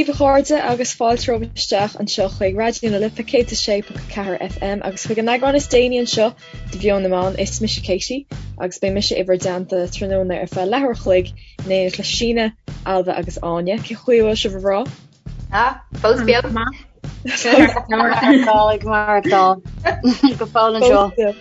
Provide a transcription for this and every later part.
daoibh a chairde agus fáilte romhaibh isteach anseo chuig Raidió na Life 106.4 FM agus chuig an eagrán is déanaí anseo de Mheon na Meán. Is mise Katie agus beidh mise i bhur dteannta tráthnóna ar feadh leathuair a chloig in éineacht le Síne, Ailbhe agus Áine. Cén chaoi a bhfuil sibh a mhná? Ah, fós beo. Ag maireachtáil go fóill anseo.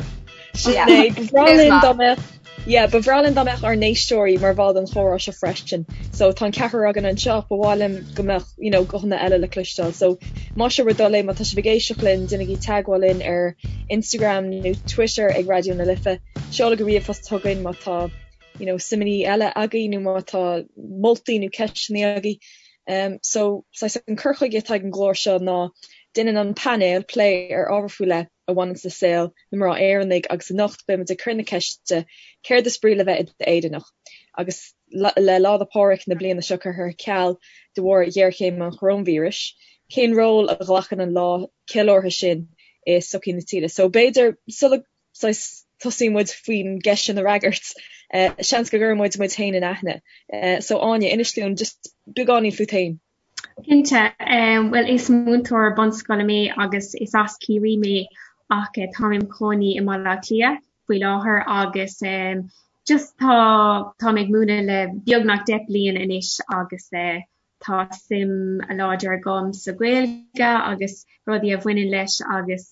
Sin é, ba bhreá linn dá mbeadh Yeah, ba bhreá linn dá mbeadh ár n-éisteoirí mar bhall den chomhrá seo freisin. So tá an ceathrar againn anseo ach ba mhaith liom go mbeadh, you know, guthanna eile le cloisteáil. So más é bhur dtoil é, má tá sibh ag éisteacht linn, déanaigí teagmháil linn ar Instagram nó Twitter ag Raidió na Life. Seolaigí ríomhphost chugainn má tá, you know, suimeanna eile agaibh nó má tá moltaí nó ceisteanna agaibh. Um, so, saghas an cur chuige atá ag an gclár seo ná déanann an painéal plé ar ábhar faoi leith a bhaineanns le saol na mná Éireannaigh agus anocht beidh muid ag cur na ceiste céard is brí le bheith i d'Éireannach? Agus le Lá 'le Pádraig na bliana seo curtha ar ceal de bharr ghéarchéim an choróinvíris, cén ról a ghlacann an lá ceiliúrtha sin i sochaí na tíre? So b'fhéidir sula saghas tosaíonn muid faoin gceist sin a fhreagairt, seans go gcuireann muid muid féin in aithne. So Áine, inis dúinn just beagáinín fút féin. Cinnte, bhuel is múinteoir bunscoile mé agus is as Ciarraí mé ach táim im chónaí i mBaile Átha Cliath faoi láthair agus just tá táim ag múineadh le beagnach 10 bliain anois agus tá suim láidir agam sa Ghaeilge agus rudaí a bhaineann leis agus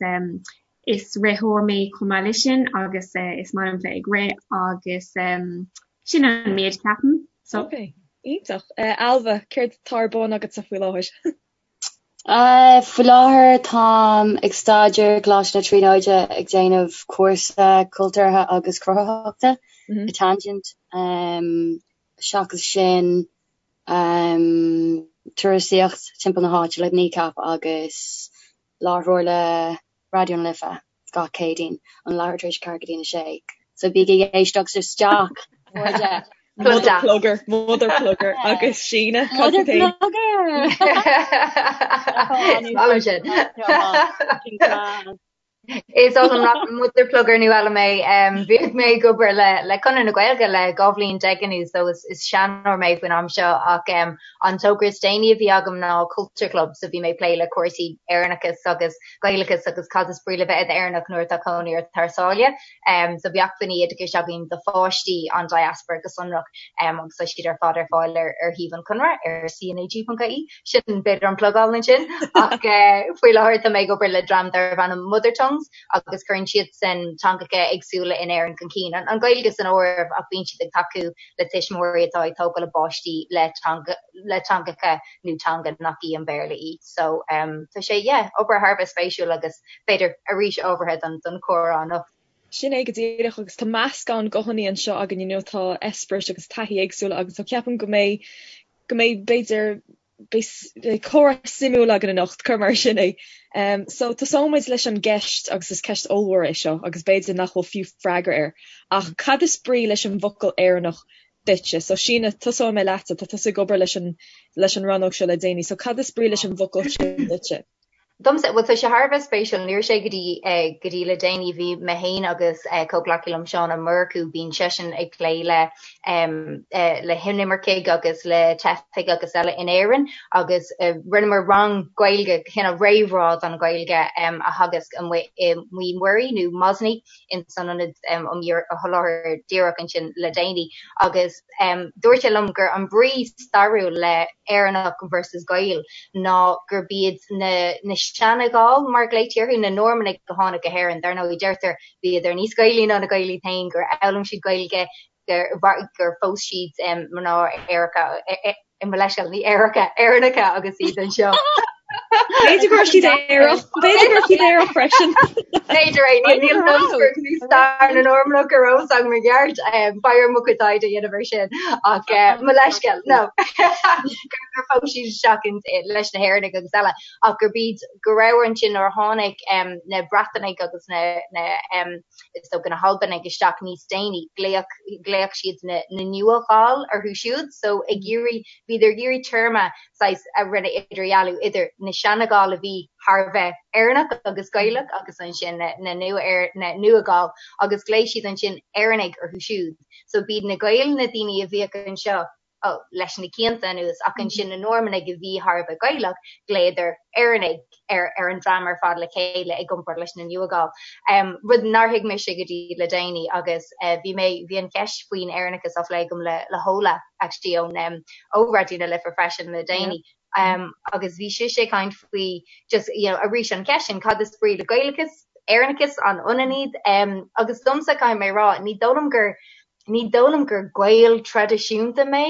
is ritheoir mé chomh maith leis sin agus is maith liom bheith ag rith agus sin an méid ceapaim. So. Ok, iontach. Ailbhe, céard atá ar bun agatsa faoi láthair? Faoi láthair táim ag staidéar i gColáiste na Tríonóide ag déanamh cúrsa cultúrtha agus cruthaitheachta i Tangent. Seachas sin, turasaíocht timpeall na háite le Kneecap agus láithreoir le Raidió na Life gach Céadaoin ón leathuair tar éis a 4 go dtí a 6. So bígí ag éisteacht isteach, a chairde! Mother plugger, mother plugger agus Síne, cad fút féin? Mother plugger! Is oth liom nach mother plugger nó eile mé. Bhíodh mé ag obair le le Conradh na Gaeilge le 12 bhliain anuas so is is seanóir mé faoin am seo ach an togra is déanaí a bhí agam ná Culture Club so bhí mé ag plé le cúrsaí Éireannachas agus Gaelachas agus cad is brí le bheith i d'Éireannach nuair atá cónaí ort thar sáile. So bhí acmhainní oideachais againn do pháistí an diaspora go sonrach agus tá siad ar fad ar fáil ar ar shuíomh an Chonradh ar cnag.ie. Sin b'fhéidir an plugáil ansin ach faoi láthair tá mé ag obair le dream darbh ainm Mother Tongues agus cuireann siadsan teangacha éagsúla in Éirinn chun cinn, an Ghaeilge san áireamh ach bíonn siad ag tacú le tuismitheoirí atá ag tógáil a bpáistí le teanga le teangacha nó teanga nach í an Béarla í. So tá sé yeah, obair thar a bheith spéisiúil agus b'fhéidir arís ábhartha don don chomhrá anocht. Sin é go díreach agus tá meascán guthanna anseo againn, you know, tá eispéiris agus taithí éagsúla agus so ceapaim go mbeidh go mbeidh, b'fhéidir, beidh comhrá suimiúil againn anocht, cuir mar sin é. So, tosóidh muid leis an gceist, agus is ceist ollmhór é seo, agus b'fhéidir nach bhfuil fiú freagra air, ach cad is brí leis an bhfocal Éireannach duitse? So, Síne, tosóidh mé leatsa, tá tusa ag obair leis an, leis an rannóg seo le déanaí, so cad is brí leis an bhfocal sin duitse? Domsa, bhuel tá sé thar a bheith spéisiúil, ní raibh sé go dtí go dtí le déanaí, bhí mé féin agus comhghleacaí liom Seán Ó Murchú, bíonn seisean ag plé le le hinimircigh agus le teifigh agus eile in Éirinn agus rinneamar rang Gaeilge, cineál réamhrá don Ghaeilge a theagasc amuigh i Maigh Muirí nó Mosney in san ionad um sholáthar díreach ansin le déanaí agus dúirt sé liom gur an brí stairiúil le Éireannach versus Gael ná gurb iad na na seana-Ghaill mar a ghlaoití orthu, na Normannaigh a tháinig go hÉirinn. Dar ndóigh deirtear bhíodar níos Gaelaí ná na Gaeil iad féin, gur fhoghlaim siad Gaeilge, gur gur phós siad mná aeracha Mo leithscéal, ní aeracha, Éireannacha agus iad anseo. B'fhéidir go raibh siad aerach, b'fhéidir go raibh siad aerach freisin. B'fhéidir é, níl níl stair na Normannach ar eolas agam i gceart, beidh orm mo chuid taighde a dhéanamh ar sin ach mo leithscéal, no. Gur phós siad isteach leis na hÉireannaigh agus eile ach gurb iad go raibh ansin nuair a tháinig na Breatanaigh agus na is dócha na hAlbanaigh isteach níos déanaí, ghlaoch, ghlaoch siad na, na Nua-Ghaill orthu siúd, so ag iarraidh, bhíodar ag iarraidh téarma saghas a rinne idirdhealú idir na seana-Ghaill a bhí thar a bheith Éireannach agus Gaelach agus ansin na, na nua, na Nua-Ghaill agus ghlaoigh siad ansin Éireannaigh orthu siúd. So b'iad na Gaeil na daoine a bhíodh anseo. leis na cianta anuas ach ansin na Normannaigh a bhí thar a bheith Gaelach, ghlaodar Éireannaigh ar ar an dream ar fad le chéile i gcomparáid leis na Nua-Ghaill. Rud nár thuig mise go dtí le déanaí agus bhí mé, bhí an cheist faoin Éireannachas á phlé agam le le hOla actually ón ó Raidió na Life freisin le déanaí agus bhí sise ag caint faoi just you know arís an cheist sin cad is brí le Gaelachas, Éireannachas, an ionann iad? Agus domsa caithfidh mé a rá ní dóigh liom gur Ní dóigh liom gur Gael traidisiúnta mé.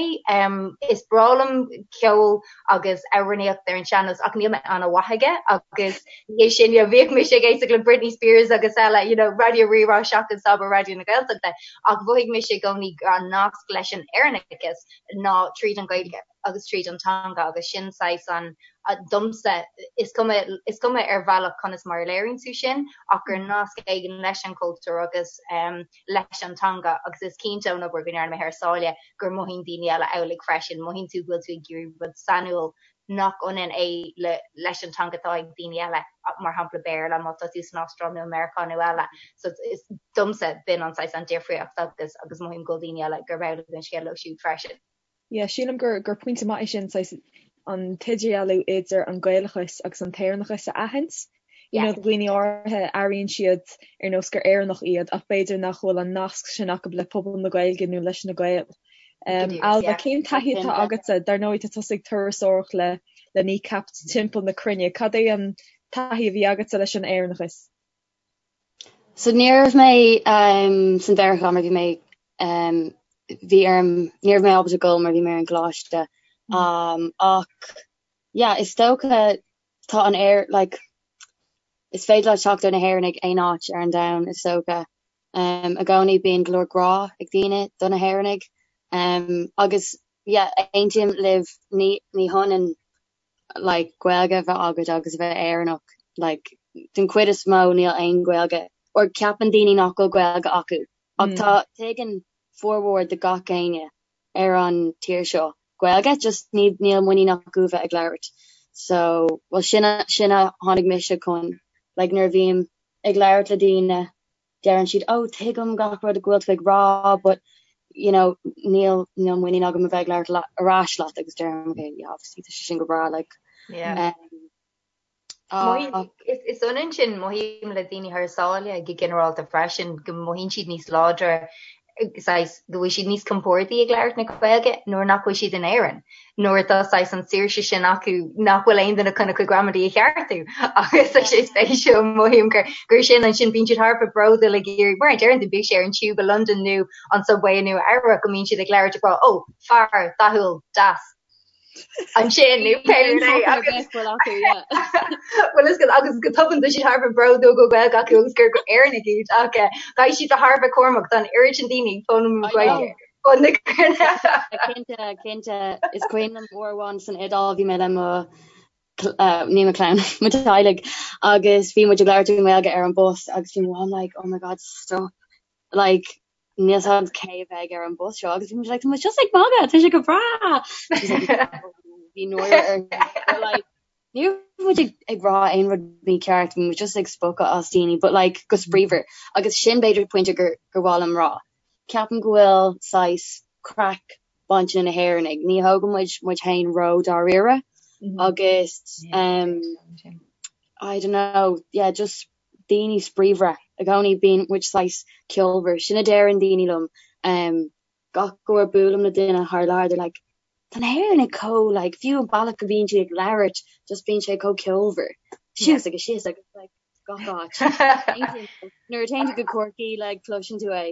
Is breá liom ceol agus amhránaíocht ar an sean-nós ach níl mé an-mhaith aige agus ní hé sin, you know, bhíodh mise ag éisteacht le Britney Spears agus eile, you know, Raidió Rí-Rá seachas abair Raidió na Gaeltachta ach mhothaigh mise i gcónaí an nasc leis an Éireannachas ná tríd an Ghaeilge agus tríd an teanga agus sin saghas an domsa, is cuma, is cuma ar bhealach conas mar a léiríonn tú sin ach gur nasc éigin leis an chultúr agus leis an teanga agus is cinnte ón obair go ndearna mé thar sáile gur mothaíonn daoine eile amhlaidh freisin, mothaíonn tú go bhfuil tú ag iarraidh rud sainiúil nach ionann é le leis an teanga atá ag daoine eile, mar shampla Béarla má tá tú san Astráil nó i Meiriceá nó eile. So is domsa b'in an saghas an difríocht agus agus mothaím go bhfuil daoine eile gurb amhlaidh an scéal leo siúd freisin. Yeah, sílim gur gur pointe maith é sin, saghas an t-idirdhealú idir an Gaelachas agus an t-Éireannachas a aithint. You know, do dhaoine áirithe, airíonn siad ar nós gur Éireannach iad ach b'fhéidir nach bhfuil an nasc sin acu le pobal na Gaeilge nó leis na Gaeil. Um, Ailbhe, cén taithí atá agatsa? Dar ndóigh, tá tusa ag turasóireacht le le Kneecap timpeall na cruinne. Cad é an taithí a bhí agatsa leis an Éireannachas? So ní raibh mé san Mheiriceá mar bhí mé bhí orm ní raibh mé ábalta dul mar bhí mé ar an gcoláiste ach yeah is dócha tá an air like is féidir leat teacht ar na hÉireannaigh aon áit ar an domhan is dócha. I gcónaí bíonn go leor grá ag daoine do na hÉireannaigh agus yeah aontaím libh ní ní hionann like Gaeilge a bheith agat agus a bheith Éireannach like den chuid is mó níl aon Ghaeilge or ceapann daoine nach bhfuil Gaeilge acu ach tá tuigeann formhór de gach éinne ar an tír seo Gaeilge just ní níl muinín acu a bheith ag labhairt so well sin a sin a tháinig mise chun like nuair a bhím ag labhairt le daoine deireann siad oh tuigim gach rud go bhfuil tú ag rá but you know níl níl muinín agam a bheith ag labhairt ar ais leat agus deirim okay yeah obviously tá sé sin go breá like yeah. um, uh, is, is ionann sin mothaím le daoine thar sáile go ginearálta freisin go mothaíonn siad níos láidre saghas go bhfuil siad níos compordaí ag labhairt na Gaeilge nuair nach bhfuil siad in Éirinn, nuair atá saghas an saoirse sin acu nach bhfuil aon duine chun a gcuid gramadaí a cheartú agus tá sé spéisiúil mothaím gur gur sin ansin bíonn siad thar a bheith bródúil ag iarraidh mar a deireann tú bíodh sé ar an tube i Londain nó an subway i Nua Eabhrac go mbíonn siad ag labhairt ag rá ó fear dathúil deas ansin nó pé rud é agus bhuel is agus go tobann tá siad thar a bheith bródúil go bhfuil Gaeilge acu agus gur Éireannaigh iad ach eh, caithfidh siad bheith thar a bheith cúramach tá an oiread sin daoine ag foghlaim Gaeilge. Cinnte, cinnte, is cuimhin liom uair amháin san Iodáil bhí mé le mo eh, ní mo chlann, mo teaghlaigh agus bhí muid ag labhairt i nGaeilge ar an bus agus bhí mo mham like oh my god stop like níl 's a'd cé a bheidh ar an bus seo agus bhí muid like tá muid just ag magadh tá sé go breá bhí náire ar like ní raibh muid ag, ag rá aon rud mícheart bhí muid just ag spochadh as daoine but like go spraíúil agus sin b'fhéidir pointe gur gur mhaith liom rá ceapaim go bhfuil saghas craic bainte na hÉireannaigh ní thógann muid muid féin ró dáiríre agus um, I don't know yeah just daoine spraíúla i gcónaí bíonn muid saghas ceolmhar sin a deireann daoine liom um, gach uair buailim le duine thar lear they're like tá na hÉireannaigh chomh like fiú an bealach go bhíonn siad ag labhairt just bíonn sé chomh ceolmhar suas agus síos agus like gach áit nuair a théann tú go Corcaigh like cloiseann tú é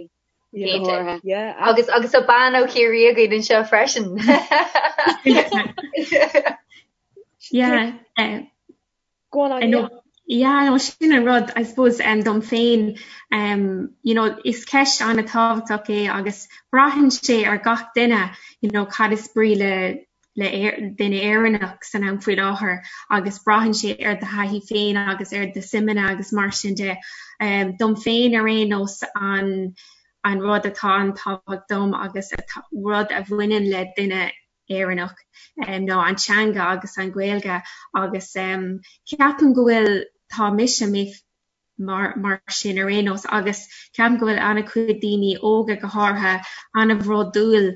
go háirithe. Agus agus tá bean ó Chiarraí againn anseo freisin. Yeah. Uh, Go on, Anya. Yeah, no, sin an rud, I suppose, um, dom féin, um, you know, is ceist an-tábhachtach é agus braitheann sé ar gach duine, you know, cad is brí le le duine Éireannach san am faoi láthair agus braitheann sé ar do thaithí féin agus ar do suimeanna agus mar sin de. Um, dom féin ar aon nós an an rud atá an-tábhachtach dom agus rud a bhaineann le duine Éireannach ná an teanga agus an Ghaeilge agus ceapaim go bhfuil, tá mise, mé mar mar sin ar aon nós agus ceapaim go bhfuil an-chuid daoine óga go háirithe an-bhródúil.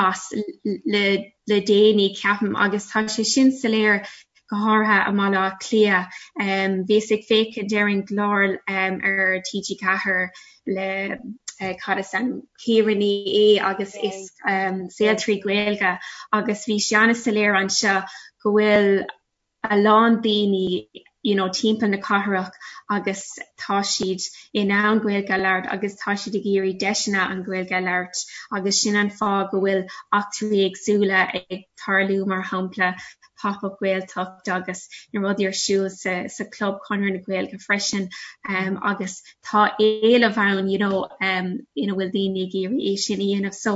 as le le déanaí ceapaim agus tá sé sin soiléir go háirithe i mBaile Átha Cliath. Bhíos ag féachaint ar an gclár ar TG4 le cad is ainm Ciara Ní É agus is Saol 3 Gaeilge agus bhí sé an-soiléir anseo go bhfuil a lán daoine you know timpeall na cathrach agus tá siad in ann Gaeilge a labhairt agus tá siad ag iarraidh deiseanna an Ghaeilge a labhairt agus sin an fáth go bhfuil eachtraí éagsúla ag tarlú mar shampla Pop Up Gaeltacht agus na rudaí ar siúl sa sa Club Conradh na Gaeilge freisin um, agus tá éileamh ann you know um, ina bhfuil daoine ag iarraidh é sin a dhéanamh so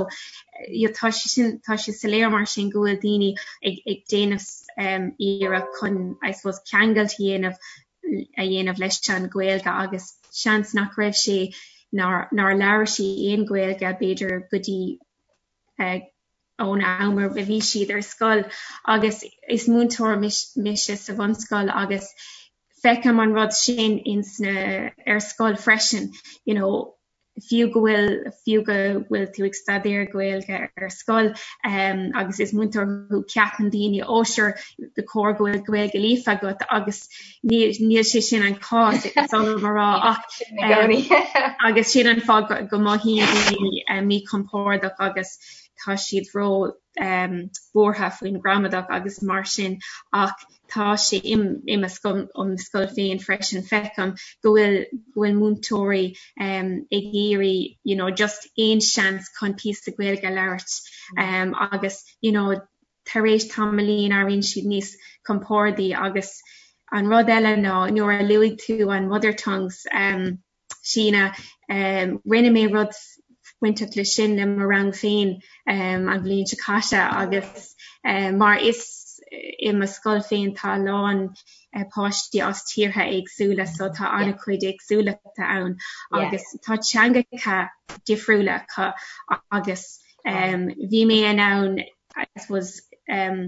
you know, tá sé sin tá sé soiléir mar sin go bhfuil daoine ag, ag déanamh um, iarracht chun I suppose ceangailt a dhéanamh a dhéanamh leis an Ghaeilge agus seans nach raibh sé nár nár labhair sí aon Ghaeilge b'fhéidir go dtí uh, ón am a bhí siad ar scoil agus is múinteoir mise sa bhunscoil agus feicim an rud sin ins na ar scoil freisin you know fiú go bhfuil fiú go bhfuil tú ag staidéar Gaeilge ar scoil um, agus is múinteoir thú ceapann daoine ó sure ba chóir go bhfuil Gaeilge líofa agat agus níl sé sin an cás is oth liom a rá ach um, agus sin an fáth go, go mothaíonn daoine um, míchompordach agus tá siad ró um, buartha faoin gramadach agus mar sin ach tá sé i mo scoil um scoil féin freisin feicim go bhfuil go bhfuil múinteoirí um, ag iarraidh you know, just aon seans chun píosa Gaeilge a labhairt um, agus you know, tar éis tamaillín éiríonn siad níos compordaí agus an rud eile ná nuair a luaigh tú an mother tongues um, Síne, um, rinne mé rud bainteach le sin le mo rang féin um, an bhliain seo caite agus um, mar is i mo scoil féin tá a lán uh, páistí as tíortha éagsúla so tá an-chuid éagsúlachta ann agus tá teangacha difriúla acu agus um, bhí mé in ann I suppose um,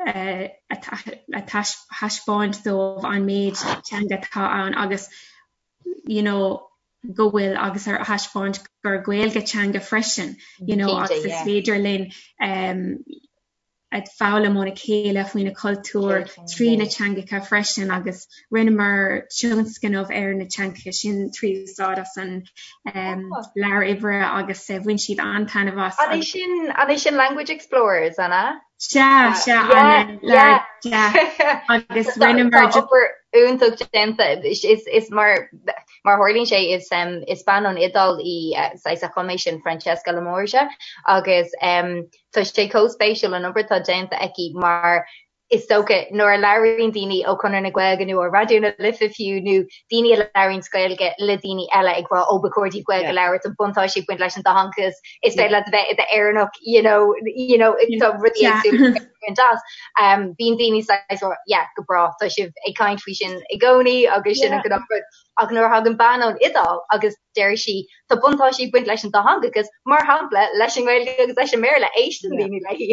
uh, a thaispeáint dóibh an méid teanga atá ann agus you know, go bhfuil agus ar thaispeáint gur Gaeilge teanga freisin you know, agus is féidir linn um, ag foghlaim óna chéile faoina cultúr trí na teangacha freisin agus rinneamar tionscnamh ar na teangacha sin trí úsáid as an um, leabhar oibre agus uh, bhain siad an-taitneamh as. An é sin an é sin Language Explorers an ea? Sea, sea, an leabhar agus rinneamar obair iontach déanta is is mar mar tharlaíonn sé is um, is bean ón Iodáil í uh, saghas a chum é sin Francesca La Morgia agus um, Tá sé chomh spéisiúil an obair atá déanta aici mar is dócha nuair a labhraíonn daoine ó Chonradh na Gaeilge nó ó Raidió na Life fiú nó daoine a labhraíonns Gaeilge le daoine eile ag rá ó ba chóir daoibh Gaeilge a labhairt an buntáiste ag baint leis an dátheangachas is féidir leat a bheith i d'Éireannach you know you know tá rudaí éagsúla baint as. Um, bíonn daoine saghas rá yeah go breá tá sibh ag caint faoi sin i gcónaí agus sin an gnáthrud. Ach nuair a thagann bean ón Iodáil agus deir sí, tá buntáistí ag baint leis an dátheangachas, mar shampla, leis an nGaeilge agus leis an mBéarla, éisteann daoine léi.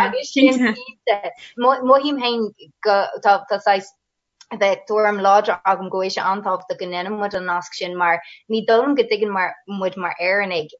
Agus sin cinnte. Mothaím féin go tá tá saghas bheith tuairim láidir agam go bhfuil sé an-tábhachtach go ndéanann muid an nasc sin mar ní dóigh liom go dtuigeann mar muid mar Éireannaigh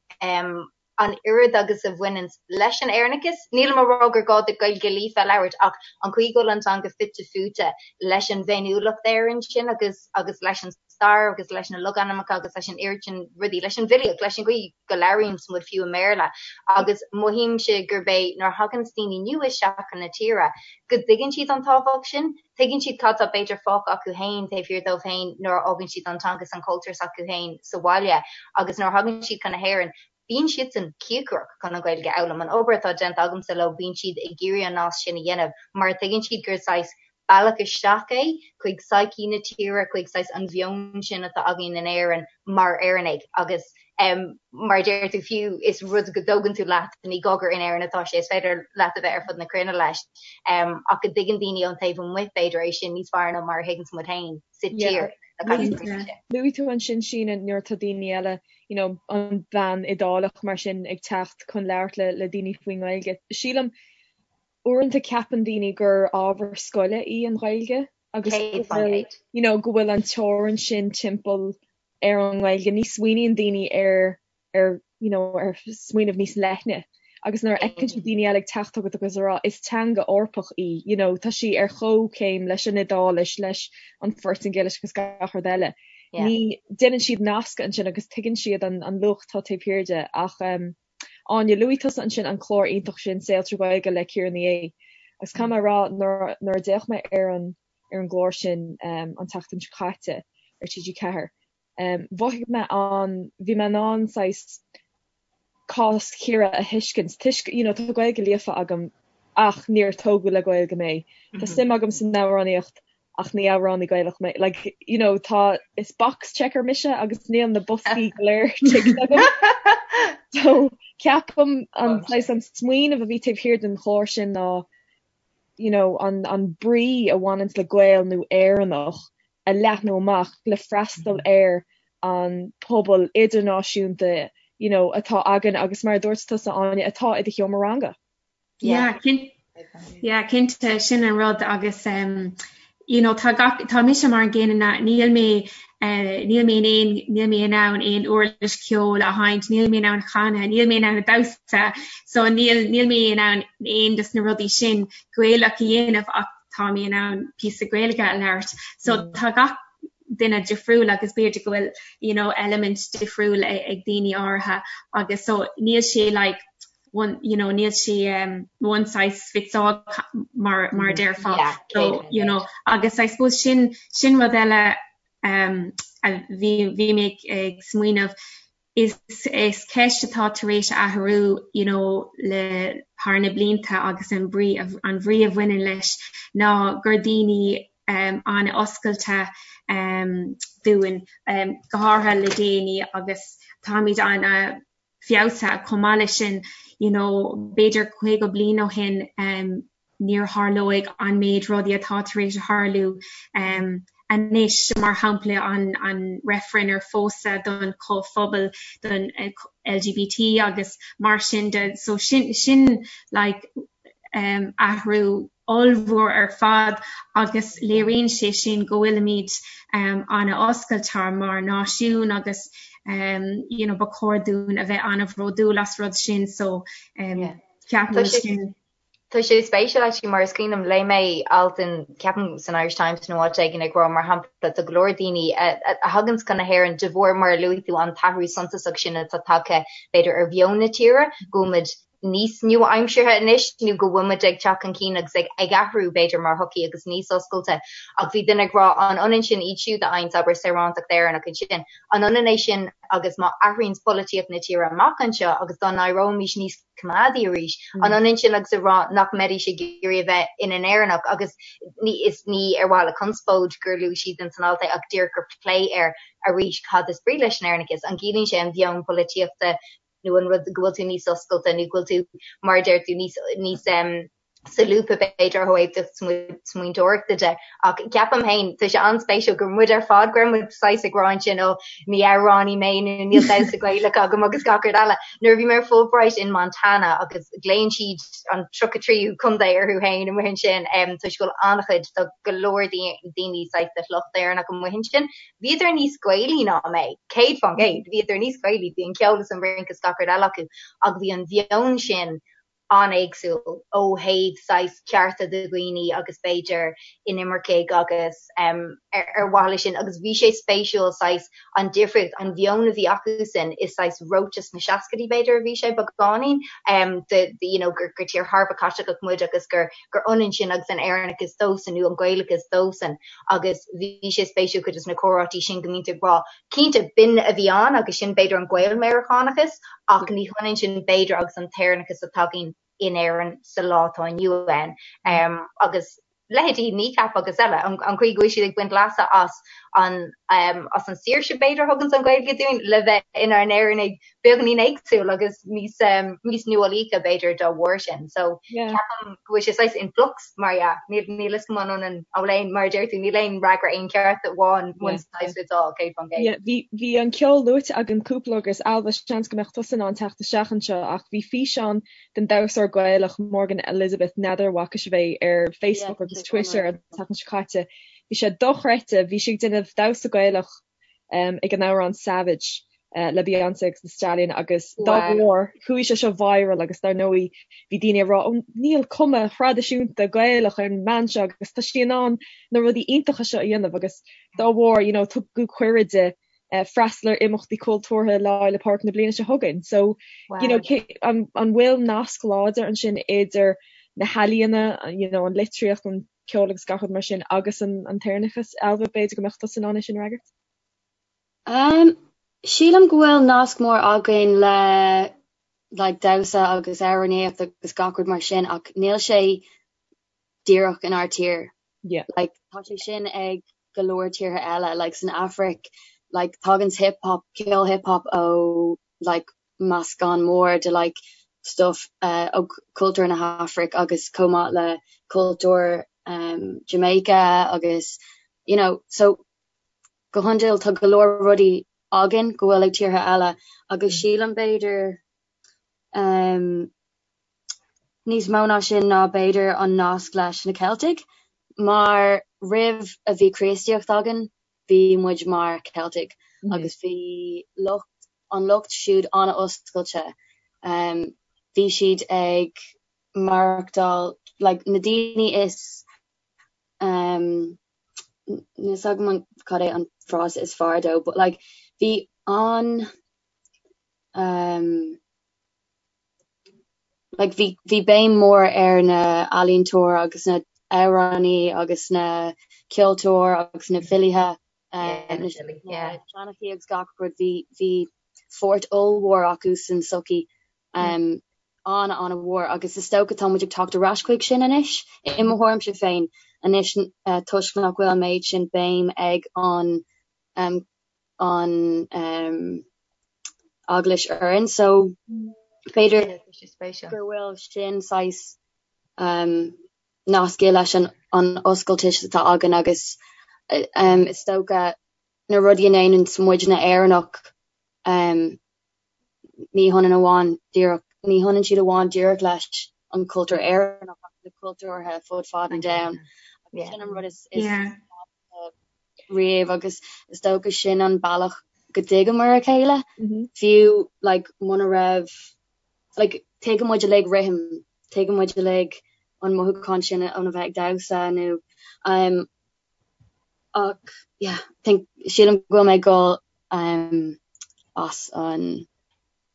an oiread agus a bhaineann leis an Éireannachas. Nílim ag rá gur gá duit Gaeilge líofa a labhairt ach an chaoi go bhfuil an teanga fite fuaite leis an bhféiniúlacht Éireann sin agus agus leis an stair agus leis na logainmneacha agus leis an oiread sin rudaí, leis an bhfilíocht, leis an gcaoi go labhraíonns muid fiú i mBéarla. Agus mothaímse gurb é nuair a thaganns daoine nua isteach chun na tíre go dtuigeann siad an tábhacht sin, tuigeann siad cad tá b'fhéidir fágtha acu féin taobh thiar dóibh féin nuair a fhágann siad an teanga is an cultúr s'acu féin sa bhaile agus nuair a thagann siad chun na hÉireann bíonn siadsan cíocrach chun an Ghaeilge a fhoghlaim. An obair atá déanta agamsa leo, bíonn siad ag iarraidh an nasc sin a dhéanamh mar tuigeann siad gur saghas bealach isteach é chuig psyche na tíre, chuig saghas an mheon sin atá againn in Éirinn mar Éireannaigh agus mar a deir tú fiú is rud go dtógann tú leat, ní gá gur in Éirinn atá sé, is féidir leat a bheith ar fud na cruinne leis ach go dtuigeann daoine ón taobh amuigh b'fhéidir é sin níos fearr ná mar a thuigeanns muid féin sa tír. Luaigh tú ansin Síne nuair atá daoine eile you know, an bhean Iodálach mar sin ag teacht chun labhairt le le daoine faoin nGaeilge. Sílim uaireanta ceapann daoine gur ábhar scoile í an Ghaeilge agus go bhfuil you know, go bhfuil an teorainn sin timpeall ar an nGaeilge. Ní smaoiníonn daoine ar ar you know, ar smaoineamh níos leithne. Agus nuair a fheiceann siad daoine eile ag teacht chugat agus ag rá is teanga Eorpach í, you know, tá sí ar chomhchéim leis an Iodáilis, leis an Phortaingéilis agus gach rud eile. Ní déanann siad nascadh ansin agus tuigeann siad an an luach atá taobh thiar de. Ach um, Áine, luaigh tusa ansin an clár iontach sin Saol Trí Ghaeilge le Ciara Ní É. Agus caithfidh mé a rá nuair nuair a d'fhéach mé ar an ar an gclár sin um, an tseachtain seo caite ar TG4, um, mhothaigh mé an bhí mé in ann saghas cás Chiara a thuiscint toisc you know tá Gaeilge líofa agam ach níor tógadh le Gaeilge mé. Tá suim agam san amhránaíocht ach ní amhránaí Gaelach mé. Like you know tá is box checker mise agus níl na boscaí go léir ticked agam. So ceapaim an saghas an smaoineamh a bhí taobh thiar den chlár sin ná you know an an brí a bhaineanns le Gael nó Éireannach a leathnú amach le freastal ar an pobal idirnáisiúnta you know atá againn agus mar a dúirt tusa Áine atá i do sheomra ranga. Yeah, yeah, cinnte sin an rud agus um, you know, tá gach tá mise mar an gcéanna níl mé uh, níl mé in aon níl mé in ann aon uirlis ceoil a sheinnt, níl mé in ann canadh, níl mé in ann damhsa, so níl níl mé in ann aon dos na rudaí sin Gaelach a dhéanamh ach tá mé in ann píosa Gaeilge a labhairt. So mm. tá gach duine difriúil agus b'fhéidir go bhfuil you know, element difriúil ag daoine áirithe agus so níl sé like one you know níl sé um, one size fits all mar mar mm. déarfá yeah, so you know agus I suppose sin sin rud eile um, a bhí bhí mé ag smaoineamh Is is ceist atá tar éis athrú you know le thar na blianta agus an brí an bhrí a bhaineann leis ná gur daoine um, an-oscailte um, dúinn um, go háirithe le déanaí agus táimid an-fheabhsaithe chomh maith leis sin you know b'fhéidir 50 bliain ó shin um, níor tharlóidh an méid rudaí atá tar éis a tharlú anois, mar shampla an an reifreann ar phósadh don chomhphobal don LGBT agus mar sin de. So sin sin like athrú ollmhór ar fad agus léiríonn sé sin go bhfuilimid an-oscailte mar náisiún agus you know ba chóir dúinn a bheith an-bhródúil as rud sin so ceapaim sin. Tá sé spéisiúil actually mar is cuimhin liom, léigh mé alt in, ceapaim san Irish Times nó áit éigin ag rá mar shampla tá go leor daoine a thaganns chun na hÉireann de bharr mar a luaigh tú an t-athrú suntasach sin atá tagtha b'fhéidir ar mheon na tíre, go bhfuil muid níos nua-aimseartha anois nó go bhfuil muid ag teacht chun cinn agus ag ag athrú b'fhéidir mar shochaí agus níos oscailte. Ach bhí duine ag rá an ionann sin iad siúd a fhaigheanns abair saorántacht Éireannach ansin, an ionann é sin agus má athraíonns polaitíocht na tíre amach anseo agus dá n-éireoimis níos coimeádaí arís. An ionann sin agus a rá nach mbeidís ag iarraidh a bheith ina nÉireannach agus ní is ní ar mhaithe le conspóid gur luaigh siad in san alt é ach díreach gur plé air arís cad is brí leis an Éireannachas? An gciallaíonn sé an mheon polaitíochta nó an rud go bhfuil tú níos oscailte nó go bhfuil tú mar a deir tú níos níos solúbtha b'fhéidir ó thaobh do smaointeoireachta de ach ceapaim féin tá sé an-spéisiúil gur muid ar fad go raibh muid saghas ag rá ansin ó ní amhránaí mé nó níl damhsa Gaelach agam agus gach rud eile. Nuair a bhí mé ar Fulbright in Montana agus glaonn siad an 33ú contae orthu féin amuigh ansin toisc go bhfuil an-chuid tá go leor daoine saghas de shliocht Éireannach amuigh ansin. Bhíodar níos Gaelaí ná mé, 100%, bhíodar níos Gaelaí, bhí an ceol is an rince is gach rud eile acu ach bhí an mheon sin an-éagsúil ó thaobh saghas cearta do dhaoine agus b'fhéidir inimircigh agus ar mhaithe leis sin agus bhí sé spéisiúil saghas an difríocht, an mheon a bhí acusan is saghas reoite sna seascaidí b'fhéidir a bhí sé beagáinín de you know gur gur tír thar a bheith Caitliceach muid agus gur gur ionann sin agus an Éireannachas dósan nó an Gaelachas dósan agus bhí sé spéisiúil cuid de na comhráití sin go mbíonn tú ag rá Cinnte, b'in a bhí ann agus sin b'fhéidir an Gael-Mheiriceánachas ach ní hionann sin b'fhéidir agus an t-Éireannachas atá againn in Éirinn sa lá atá inniu ann. Agus leithéidí Kneecap agus eile, an chaoi go bhfuil siad ag baint leasa as an as an saoirse b'fhéidir a thuganns an Ghaeilge dúinn le bheith inár nÉireannaigh beagáinín éagsúil agus níos níos nuálaíche b'fhéidir dá bharr sin. So ceapaim go bhfuil sé saghas in flux mar dhea. Níl níl fhios agam an ionann an bhfuil aon mar a deir tú níl aon fhreagra aon cheart amháin one size fits all 100%. Yeah, bhí bhí an ceol luaite againn cúpla agus Ailbhe seans go mbeadh tusa in ann teacht isteach anseo ach bhí físeán den damhsóir Gaelach Morgan Elizabeth n'fheadar an bhfaca sibh é ar Facebook agus Twitter an tseachtain seo caite. Bhí sé dochreidte, bhí sí ag déanamh damhsa Gaelach um, ag an amhrán Savage. Le Beyoncé agus Thee Stallion agus dá bharr chuaigh sé seo viral agus dar ndóigh bhí daoine ag rá ó níl cuma thraidisiúnta Gaelach ar an mbean seo agus tá sí in ann na rudaí iontacha seo a dhéanamh agus dá bharr you know tugadh cuireadh di freastal ar imeachtaí cultúrtha Lá Fhéile Pádraig na bliana seo chugainn. So you know an an bhfuil nasc láidir ansin idir na healaíona you know an litríocht an ceol agus gach rud mar sin agus an an tÉireannachas Ailbhe b'fhéidir go mbeadh tusa in ann é sin a fhreagairt? Um, sílim go bhfuil nasc mór againn le like damhsa agus amhránaíocht agus gach rud mar sin ach níl sé díreach inár tír. Yeah. Like tá sé sin ag go leor tíortha eile, like san Afraic, like tagann hip hop, ceol hip hop ó like meascán mór de like stuff uh, ó cultúr na hAfraic agus chomh maith le cultúr um, Jamaica agus you know, so go hiondúil tá go leor rudaí againn go bhfuil ag tíortha eile agus sílim b'fhéidir um, níos mó ná sin ná b'fhéidir an nasc leis na Ceiltigh mar roimh a bhí Críostaíocht againn bhí muid mar Ceiltigh mm -hmm. agus bhí lucht an lucht siúd an-oscailte um, bhí siad ag maireachtáil like, na daoine is um, Níl 's agam an cad é an frása is fearr dó but like bhí an um like bhí bhí béim mór ar na ealaíontóir agus na amhránaí agus na ceoltóir agus na filithe um na seanchaí agus gach rud bhí bhí pháirt ollmhór acu san sochaí um an-an-mhór agus is dócha tá muid ag teacht ar ais chuig sin anois, i mo thuairimse féin, anois toisc nach bhfuil an méid sin béim ag an an eaglais orainn so b'fhéidir go bhfuil sin saghas nasctha leis an an oscailteacht atá againn agus is dócha na rudaí a ndéanann muidne Éireannach ní hionann amháin díreach, ní hionann siad amháin díreach leis an cultúr Éireannach ach le cultúrtha fud fad an domhain. Agus sin an rud is riamh agus is dócha sin an bealach go dtuigeamar a chéile, fiú like muna raibh like tuigeann muid uilig rithim, tuigeann muid uilig an mothúchán sin óna bheith ag damhsa nó um, ach yeah, think sílim go bhfuil mé ag dul um, as an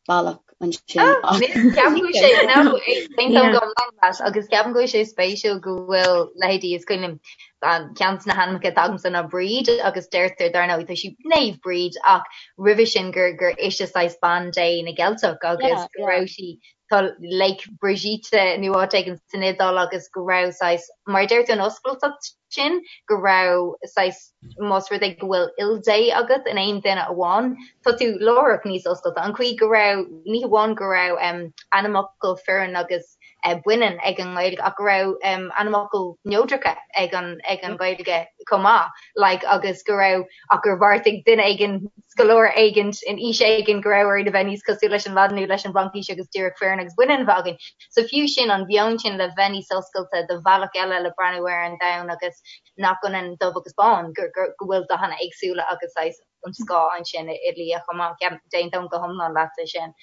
bealach ansin. Ah, ceapaim go bhfuil sé no, aontaím go hiomlán leat agus ceapaim go bhfuil sé spéisiúil go bhfuil leithéidí is cuimhin liom an ceann de na hainmneacha atá agamsa ná Bríd agus deirtear dar ndóigh tá sí Naomh Bríd ach roimhe sin gur gur ise saghas bean Dé na gCeilteach agus go raibh sí tá Lake Brigitte nó áit éigin san Iodáil agus go raibh saghas, mar a deir tú an oscailteacht sin, go raibh saghas, más rud é go bhfuil ildé agat in aon duine amháin, tá tú láithreach níos oscailte. An chaoi go raibh, ní hamháin go raibh ainmfhocal fireann agus baineann ag an nGaeilge ach go raibh ainmfhocail neodracha ag an ag an Ghaeilge chomh maith, like agus go raibh ach gur bheartaigh duine éigin, scoláire éigin in aois éigin go raibh orainn a bheith níos cosúil leis an Laidin nó leis an bhFraincis agus díreach fireann agus baineann a bheith againn. So fiú sin, an mheon sin le bheith níos oscailte do bhealach eile le breathnú ar an domhan agus nach ionann dubh agus bán, go bhfuil dathanna éagsúla agus saghas an scáth ansin i liath chomh maith. D'aontóinn go hiomlán leatsa sin.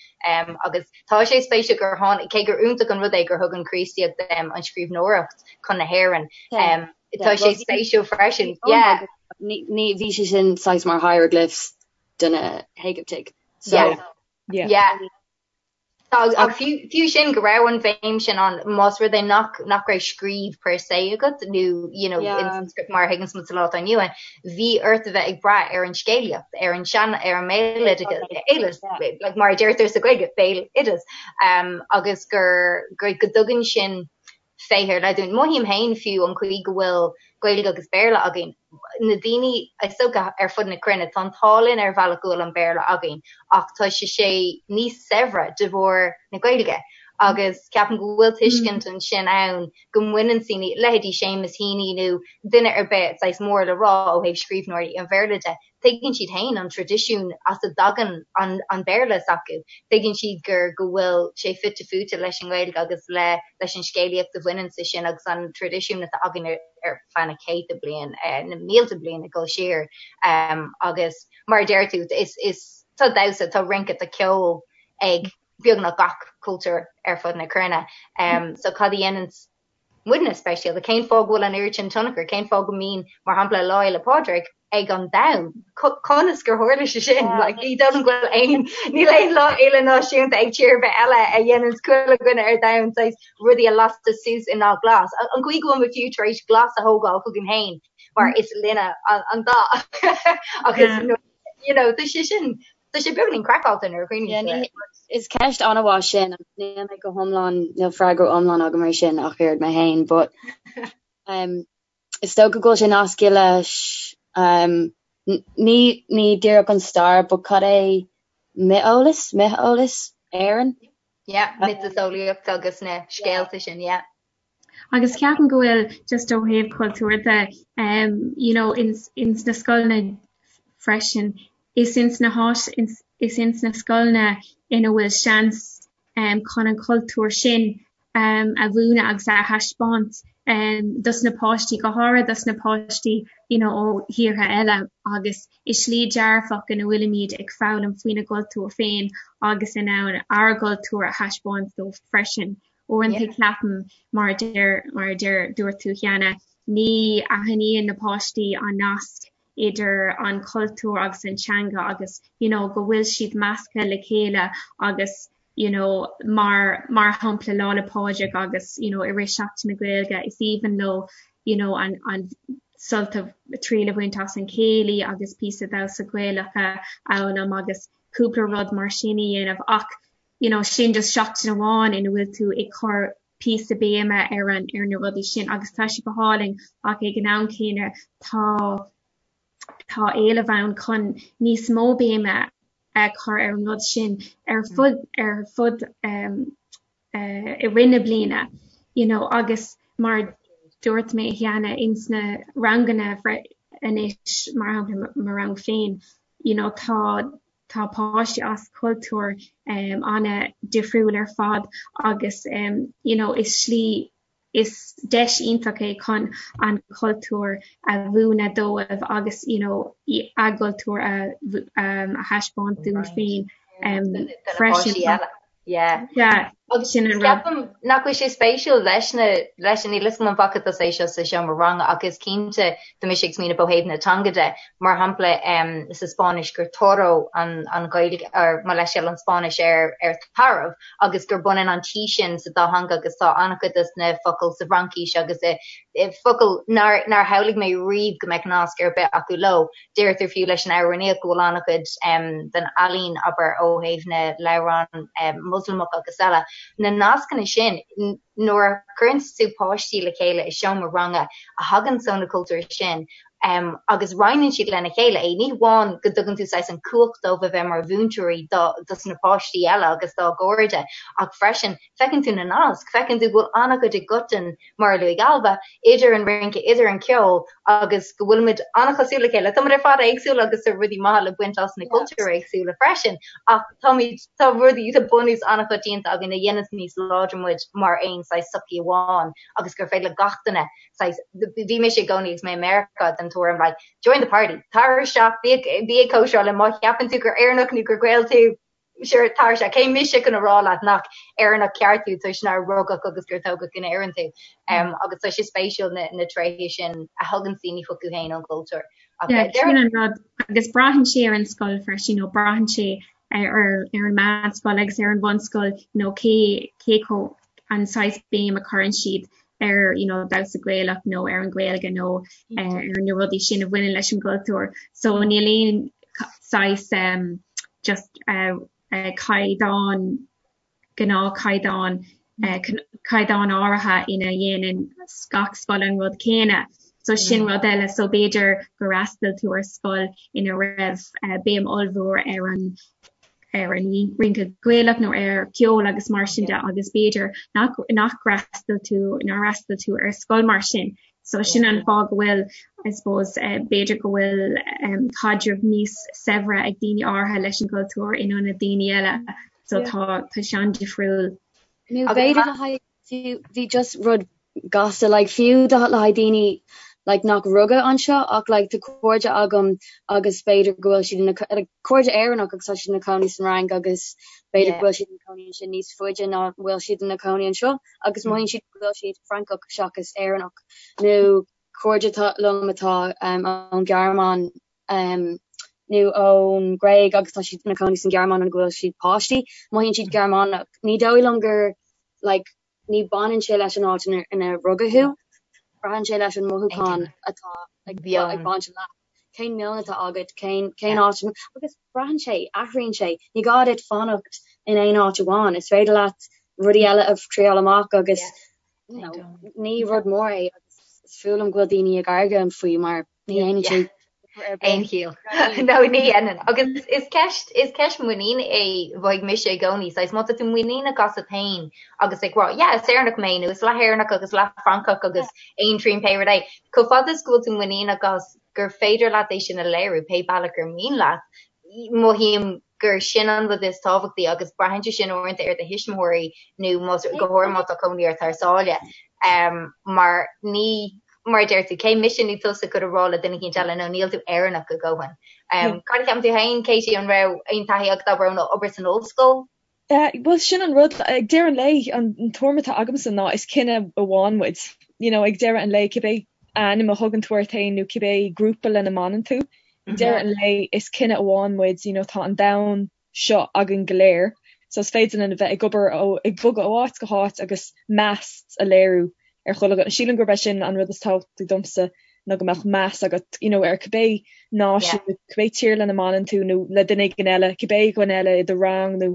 Agus tá sé spéisiúil gur tháinig, cé gur iontach an rud é gur thug an Chríostaíocht an scríbhneoireacht chun na hÉireann, Tá sé spéisiúil freisin. Yeah. Ní bhí sé sin saghas mar hieroglyphs do na hÉigiptigh. So yeah. Yeah. Ach fiú sin go raibh an bhéim sin ann más rud é nach nach raibh scríobh per se agat nó you know yeah. in script mar a thuigeann muid sa lá atá inniu ann, bhí ort a bheith ag brath ar an scéalaíocht, ar an sean ar an mbéaloideas, like mar a deirtear sa Ghaeilge, béaloideas, um, agus gur gur go dtugann sin féith ar leith dúinn. Mothaím féin fiú an chaoi go bhfuil Gaeilge agus Béarla againn, na daoine is dócha ar fud na cruinne, tá an t-ádh linn ar bhealach go bhfuil an Béarla againn ach tá sé sé níos saibhre de bharr na Gaeilge agus ceapaim go bhfuil tuiscint ansin ann go mbaineann daoine, leithéidí Seamus Heaney nó duine ar bith saghas mór le rá ó thaobh scríbhneoirí an Bhéarla de, Tuigeann siad féin an traidisiún as a dtagann an Béarla s'acu. Tuigeann siad gur go bhfuil sé fite fuaite leis an nGaeilge agus le leis an scéalaíocht a bhaineann leis sin agus an traidisiún atá againn ar feadh na céadta bliain, na mílte bliain ag dul siar. Agus mar a deir tú, is is. Tá damhsa, tá rince, tá ceol ag beagnach gach cultúr ar fud na cruinne. So cad a dhéanann muidne speisialta? Cén fáth go bhfuil an oiread sin tionchar? Cén fáth go mbíonn, mar shampla, Lá Fhéile Pádraig ag an domhan? Conas gur tharla sé sin? Like, ní dóigh liom go bhfuil aon, níl aon lá fhéile náisiúnta ag tír ar bith eile a dhéanann chuile dhuine ar domhan saghas rudaí a lasadh suas i ndath glas. An chaoi go bhfuil muid fiú tar éis glas a thógáil chugainn féin mar is linne an dath agus you know, tá sé sin, tá sé beagáinín craiceáilte nuair a chuimhníonn tú air. Is ceist an-mhaith sin agus níl mé go hiomlán, níl freagra iomlán agam ar sin ach oiread mé féin, but um, is dócha go bhfuil sé nasctha leis um, ní, ní díreach an stair, but cad é mioteolas, mioteolas Éireann? Yeah, miotaseolaíocht agus na scéalta sin, yeah. Agus ceapaim go bhfuil just ó thaobh cultúr de um you know ins ins na scoileanna freisin is ins na háis is ins na scoileanna ina bhfuil seans um chun an cultúr sin um a mhúineadh agus a thaispeáint um dos na páistí go háirithe dos na páistí you know ó thíortha eile agus i slí dearfach ina bhfuilimid ag foghlaim faoina gcultúr féin agus in ann ár gcultúr a thaispeáint dóibh freisin. Uaireanta ceapaim, mar a deir, mar a deir, dúirt tú cheana, ní aithníonn na páistí an nasc idir an cultúr agus an teanga agus you know go bhfuil siad measctha le chéile agus you know mar, mar shampla Lá 'le Pádraig agus you know i rith Seachtain na Gaeilge is aoibhinn leo you know an, an sult a, triail a bhaint as an céilí agus píosa damhsa Gaelach a fhoghlaim agus cúpla rud mar sin a dhéanamh ach you know sin just seachtain amháin ina bhfuil tú ag cur píosa béime ar an ar na rudaí sin agus tá sé go hálainn ach ag an am céanna tá tá éileamh ann chun níos mó béime a chur ar an rud sin ar fud ar fud um, uh, i rith na bliana you know agus mar dúirt mé cheana ins na ranganna anois mar shampla mo rang féin you know tá Tá páistí as cultúir an-difriúil ar fad agus you know is slí, is deis iontach é chun an cultúr a mhúineadh dóibh agus you know a gcultúr a thaispeáint dúinn féin freisin. Yeah. Yeah. Agus sin an rud. Ceapaim nach bhfuil sé spéisiúil leis na, leis an, níl 'fhios agam an bhfaca tusa é seo sa seomra ranga ach is cinnte tá mise ag smaoineamh ó thaobh na teanga de, mar shampla sa Spáinnis gur toro an, an Ghaeilge, or mo leithscéal, an Spáinnis ar, ar tarbh agus gur b'ionann an T sin sa dá theanga agus tá an-chuid des na focail sa bhFraincis agus i, i focail nár, nár shamhlaigh mé riamh go mbeadh nasc ar bith acu leo. Deirtear fiú leis an amhránaíocht go bhfuil an-chuid den ealaín, abair, ó thaobh na leabhrán Moslamach agus eile, na nascanna sin, nuair a chuireann tú páistí le chéile i seomra ranga a thagann ó na cultúir sin agus roinneann siad lena chéile é, ní hamháin go dtugann tú saghas an cumhacht dóibh a bheith mar mhúinteoirí dos na páistí eile agus dá gcairde ach freisin feiceann tú na naisc, feiceann tú go bhfuil an-chuid i gcoiteann, mar a luaigh Ailbhe, idir an rince, idir an ceol agus go bhfuilimid an-chosúil le chéile. Táimid ar fad éagsúil agus tá rudaí maithe le baint as na cultúir éagsúla freisin ach táimid, tá rudaí, tá bunús an-choitianta againn a dhéananns níos láidre muid mar aon saghas sochaí amháin agus gur féidir le gach duine saghas, bhí mise i gcónaí agus mé i Meiriceá den tuairim like, join the party, tar isteach, bí, bí ag cóisireáil linn, má cheapann tú gur Éireannach nó gur Gael tú, Sure, tar isteach. Cé mise chun a rá leat nach Éireannach ceart tú toisc nár rugadh agus gur tógadh in Éirinn tú. Agus tá sé spéisiúil na tréithe sin a thugann daoine chucu féin ón gcultúr. Yeah, sin an rud. Agus braitheann sé ar an scoil freisin, nó braitheann sé ar ar an meánscoil agus ar an bhunscoil, you know, cé cé chomh an saghas béim a chuireann siad ar you know, damhsa Gaelach nó ar an Ghaeilge nó ar na rudaí sin a bhaineann leis an gcultúr. So níl aon saghas um, just uh, uh, caighdeán gnáthchaighdeán uh, caighdeán áirithe ina dhéanann gach scoil an rud céanna. So sin rud eile, so b'fhéidir gur fhreastail tú ar scoil ina raibh uh, béim ollmhór ar an ar an rince Gaelach nó ar ceol agus mar sin de agus b'fhéidir nach nach fhreastail tú nár fhreastail tú ar scoil mar sin. So sin an fáth go bhfuil I suppose uh, b'fhéidir go bhfuil um, caidreamh níos saibhre ag daoine áirithe leis an gcultúr in ionad daoine eile. So tá tá sé an-difriúil. Nó b'fhéidir le haghaidh fiú bhí just rud gasta like fiú do le haghaidh daoine like nach rugadh anseo ach like tá cairde agam agus b'fhéidir go bhfuil siad ina like cairde Éireannach agus tá siad ina cónaí san Fhrainc agus b'fhéidir go bhfuil siad ina cónaí ansin níos faide ná bhfuil siad ina cónaí anseo agus mothaíonn siad go bhfuil siad Francach seachas Éireannach nó cairde liom atá um, ón Ghearmáin um, nó ón Ghréig agus tá siad ina cónaí san Ghearmáin ó go bhfuil siad páistí, mothaíonn siad Gearmánach. Ní dóigh liom gur like ní baineann sé leis an áit ina rugadh thú, braitheann sé leis an mothúchán atá ag baint leat. Cén meon atá agat, cén cén áit agus braitheann sé, athraíonn sé. Ní gá duit fanacht in aon áit amháin, is féidir leat rudaí eile a thriáil amach agus you know, ní rud mór é agus is fuath liom go bhfuil daoine ag argóint faoi mar Ní dhéanann sé aon chiall. No, ní dhéanann. Agus is ceist, is ceist muiníne é, mhothaigh mise i gcónaí. Saghas, má tá tú muiníneach asat féin agus ag rá, yeah, is Éireannach mé nó is leath-Éireannach agus leath-Fhrancach agus aon trian pé rud é. Chomh fada is go bhfuil tú muiníneach as gur féidir leat é sin a léiriú pé bealach ar mian leat, mothaím gur sin an rud is tábhachtaí agus braitheann sé sin uaireanta ar do thuismitheoirí nó más, go háirithe má tá cónaí ort thar sáile. Mar ní, mar a deir tú, cé mise nó tusa chun a rá le duine eicínt eile no níl tú Éireannach a dhóthain. Cad a cheapann tú féin, Katie, an raibh aon taithí agat abair ón obair san ollscoil? Bhuel, sin an rud, ag deireadh an lae, an tuairim atá agamsa ná is cine amháin muid. You know, ag deireadh an lae, cibé ainm a thugann tú ort féin nó cibé grúpa lena mbaineann tú, ag deireadh an lae is cine amháin muid, you know, tá an domhan seo againn go léir. So is féidir linn a bheith ag obair ó, ag bogadh ó áit go háit agus meas a léiriú ar chuile dhuine. Sílim gurb é sin an rud is tábhachtaí domsa ná go mbeadh meas agat you know ar cibé náisiún nó cibé tír lena mbaineann tú nó le duine éigin eile, cibé dhuine eile i do rang nó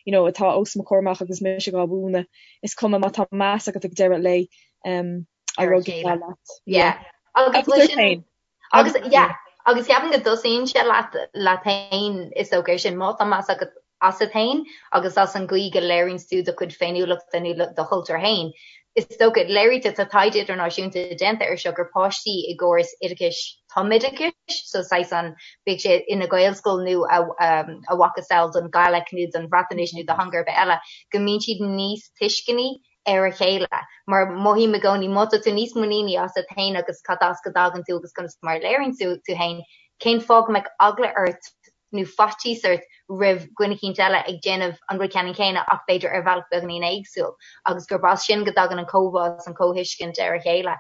you know atá os mo chomhair amach agus mise dhá mhúineadh. Is cuma má tá meas agat ag deireadh an lae um, a rud atá leat. Yeah. Agus ort féin. Agus yeah, agus ceapaim go dtosaíonn sé leat leat féin is dócha ar sin má tá meas agat asat féin agus as an gcaoi go léiríonn tú do chuid féiniúlachta nó do chultúr féin. Is dócha, léirítear, tá taighde idirnáisiúnta déanta air seo gur páistí i gcóras oideachais tumoideachais, so saghas an, bíodh sé ina Ghaelscoil nó a a mhacasamhail don Ghaeilic nó don Bhreatnais nó do theanga ar bith eile, go mbíonn siad níos tuisceanaí ar a chéile, mar mothaím i gcónaí má tá tú níos muiníní asat féin agus cad as go dtagann tú agus conas mar a léiríonn tú tú féin, cén fáth go mbeadh eagla ort nó faitíos ort roimh dhuine eicínt eile ag déanamh an rud ceannann céanna ach b'fhéidir ar bhealach beagáinín éagsúil agus gurb as sin go dtagann an comhbhá is an comhthuiscint ar a chéile.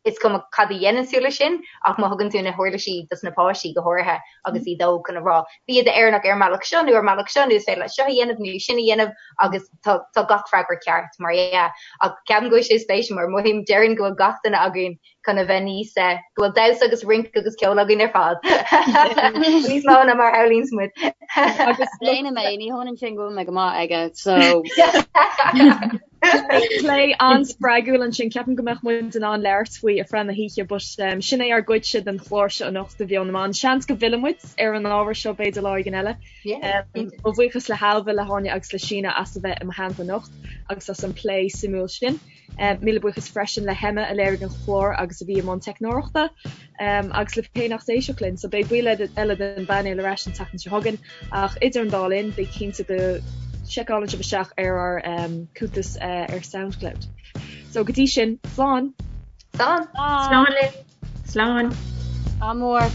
Is cuma cad a dhéanann tú leis sin, ach má thugann tú na huirlisí dos na páistí, go háirithe agus iad óg, chun a rá, bí i d'Éireannach ar an mbealach seo nó ar an mbealach seo nó is féidir leat seo a dhéanamh nó sin a dhéanamh agus tá tá gach freagra ceart, mar dhea. Ach ceapaim go bhfuil sé spéisiúil mar mothaím, déarfainn go bhfuil gach duine againn chun a bheith níos, go bhfuil damhsa agus rince agus ceol againn ar fad. Níos mó ná mar a shamhlaíonns muid. Agus déanaim é, ní hionann sin go bhfuil mé go maith aige, so. Plé an-spreagúil ansin. Ceapaim go mbeadh muid in ann labhairt faoi ar feadh na hoíche but sin é ár gcuidse den chlár seo anocht de Mheon na mBan. Seans go bhfillfidh muid ar an ábhar seo b'fhéidir lá éigin eile. Mo bhuíochas le hAilbhe, le hÁine agus le Síne as a bheith i mo theannta anocht agus as an plé suimiúil sin. Míle buíochas freisin le hEmma a léirigh an clár agus a bhí i mbun teicneoireachta agus libh féin as éisteacht linn. So beidh baill eile den bpainéal ar ais an tseachtain seo chugainn ach idir an dá linn bí cinnte go seiceálann sibh isteach ar ár cuntas ar Soundcloud. So go dtí sin, slán! Slán! Slán libh! Slán! Ádh mór!